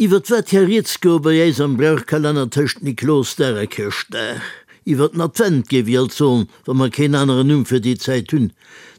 Iwwert wat ka rieds goe bei äis am Brauchkalenner tëscht Niklosdag a Chrëschtdag? Iwwert den Advent, géif ech alt soen, wa mer keen aneren Numm fir déi Zäit hunn.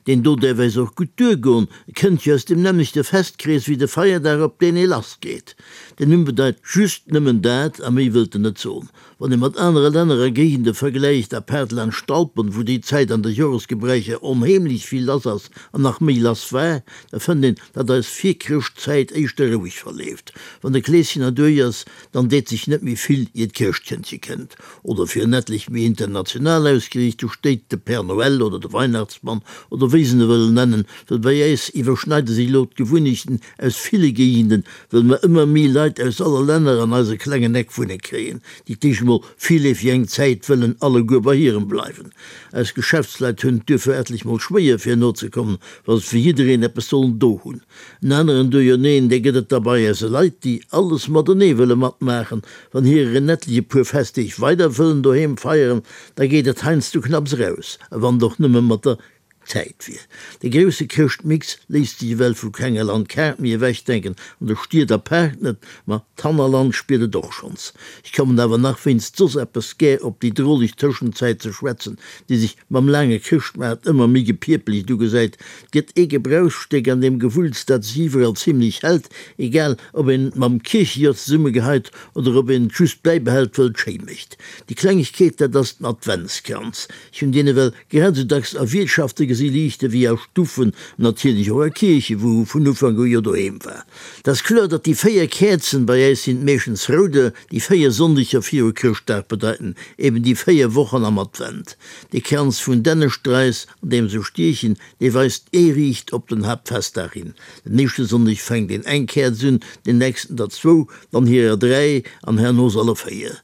Deen do däerf äis och gutt duergoen, e kënnt jo aus dem nämmlechte Festkrees wéi de Feierdag, op deen ee lassgeet. Den Numm bedeit just nëmmen dat a méi wëllt en net soen. Wann ee mat anere Länner a Géigende vergläicht, apaart laanscht d'Alpen, wou déi Zäit an de Joresgebräicher onheemlech vill lass ass an nach méi lass war, da fënnt een, datt eis Virchrëschtzäit éischter roueg verleeft. Wann de Kleeschen erduerch ass, dann deet sech net méi vill, ier d'Chrëschtkëndche kënnt. Oder fir en etlech méi international ausgeriicht, do steet de Père Noël oder de Weihnachtsmann oder wéi se en wëllen nennen, well bei äis iwwerschneide sech elo d'Gewunnechten aus ville Géigenden, Wëll mer ëmmer méi Leit aus alle Länner an eise klengen Eck wunne kréien, déi d'éischt emol virleefeg eng Zäit wëllen alleguer bei hirem bleiwen. Eis Geschäftsleit hunn et duerfir etlech mol schwéier fir nozekommen, wa se fir jiddereen eppes sollen do hunn. En aneren Duerjerneen, dee gëtt et da bei eise Leit, déi alles matenee wëlle matmaachen. Wann hirer en etlech e puer Festdeeg weider wëllen doheem feieren, da geet et heiansdo knapps eraus, a wann et och nëmme mat der Zäit wier. De grousse Chrëschtmix léisst sech ewell vu kenger Landkaart méi ewechdenken, an de Stied apaart net, ma d'Hannerland spiert et och schonns. Ech kommen awer nach wéinst soss eppes gär op déi droleg Tëschenzäit ze schwätzen, déi sech mam laange Chrëschtmaart ëmmer méi gepierpelegt ugesäit. Et gëtt ee Gebrauchsstéck an deem Gewulls, dat sech iwwerall zimlech hält, egal ob een et mam Kierchejor zesummegeheit oder ob een et just bäibehält, wëll et schéi mécht. Déi Klengegkeet, dat ass den Adventskranz. Ech hunn deen ewell Grad esou dacks a Wiertschafte gesi Liichte wéi a Stuffen, an natierlech och a Kierchen, wou e vun Ufank u jo doheem war. Et ass kloer, datt déi 4 Käerzen, bei äis sinn et meeschtens rouder, déi 4 Sonndeger viru Chrëschtdag bedeiten eben déi 4 Wochen am Advent. De Kranz vun Dännestrais, an deem se stiechen, dee weist ee riicht op den Haaptfestdag hin. Den éischte Sonndeg fänkt een eng Käerz un, den nächsten der zwou, dann hirer 3 an herno se alle 4.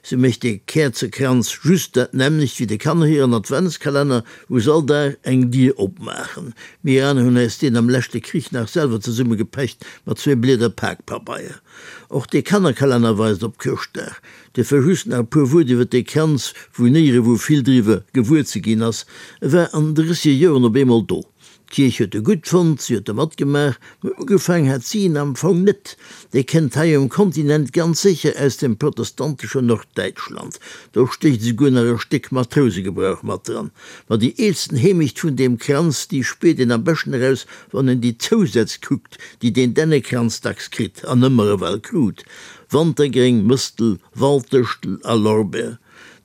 Sou mécht de Käerzekranz just dat nämmlecht wéi de Kanner hiren Adventskalenner, wou se all Dag eng Dier opmaachen. Mir aner hunn äis deen am leschte Krich nach selwer zesummegepecht mat zwee Blieder Pakpabeier. Och dee Kannerkalenner weist op Chrëschtdag. Duerfir just nach e puer Wuert iwwer dee Kranz, wou néierewou vill driwwer gewuer ze ginn ass. E war an den drësseger Joren op eemol do. D'Kierch huet e gutt fonnt, si huet e matgemaach, mä ugefaang hat si en am Fong net. Dee kënnt hei um Kontinent ganz sécher aus dem protestanteschen Norddäitschland. Do stécht esouguer nach e Stéck Matrousegebrauch mat dran. Ma déi eelsten Heemecht vun deem Kranz, déi spiert een am beschten eraus, wann een déi Zousätz kuckt, déi deen Dännekranz dacks kritt an ëmmer ewell krut, Wantergréng, Mëstel, Walddëschtel a Lorbeer.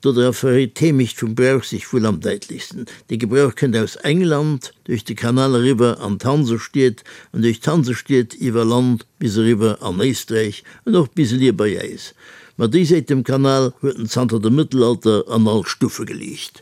Dodra verréit d'Heemecht vum Brauch sech wuel am däitlechsten. De Gebrauch kënnt aus England, duerch de Kanal eriwwer an d'Hansestied an duerch d'Hansestied iwwer Land bis eriwwer an Éisträich an och bis elier bei äis. Ma déi Säit dem Kanal huet en zanter dem Mëttelalter an all Stuffe geliicht.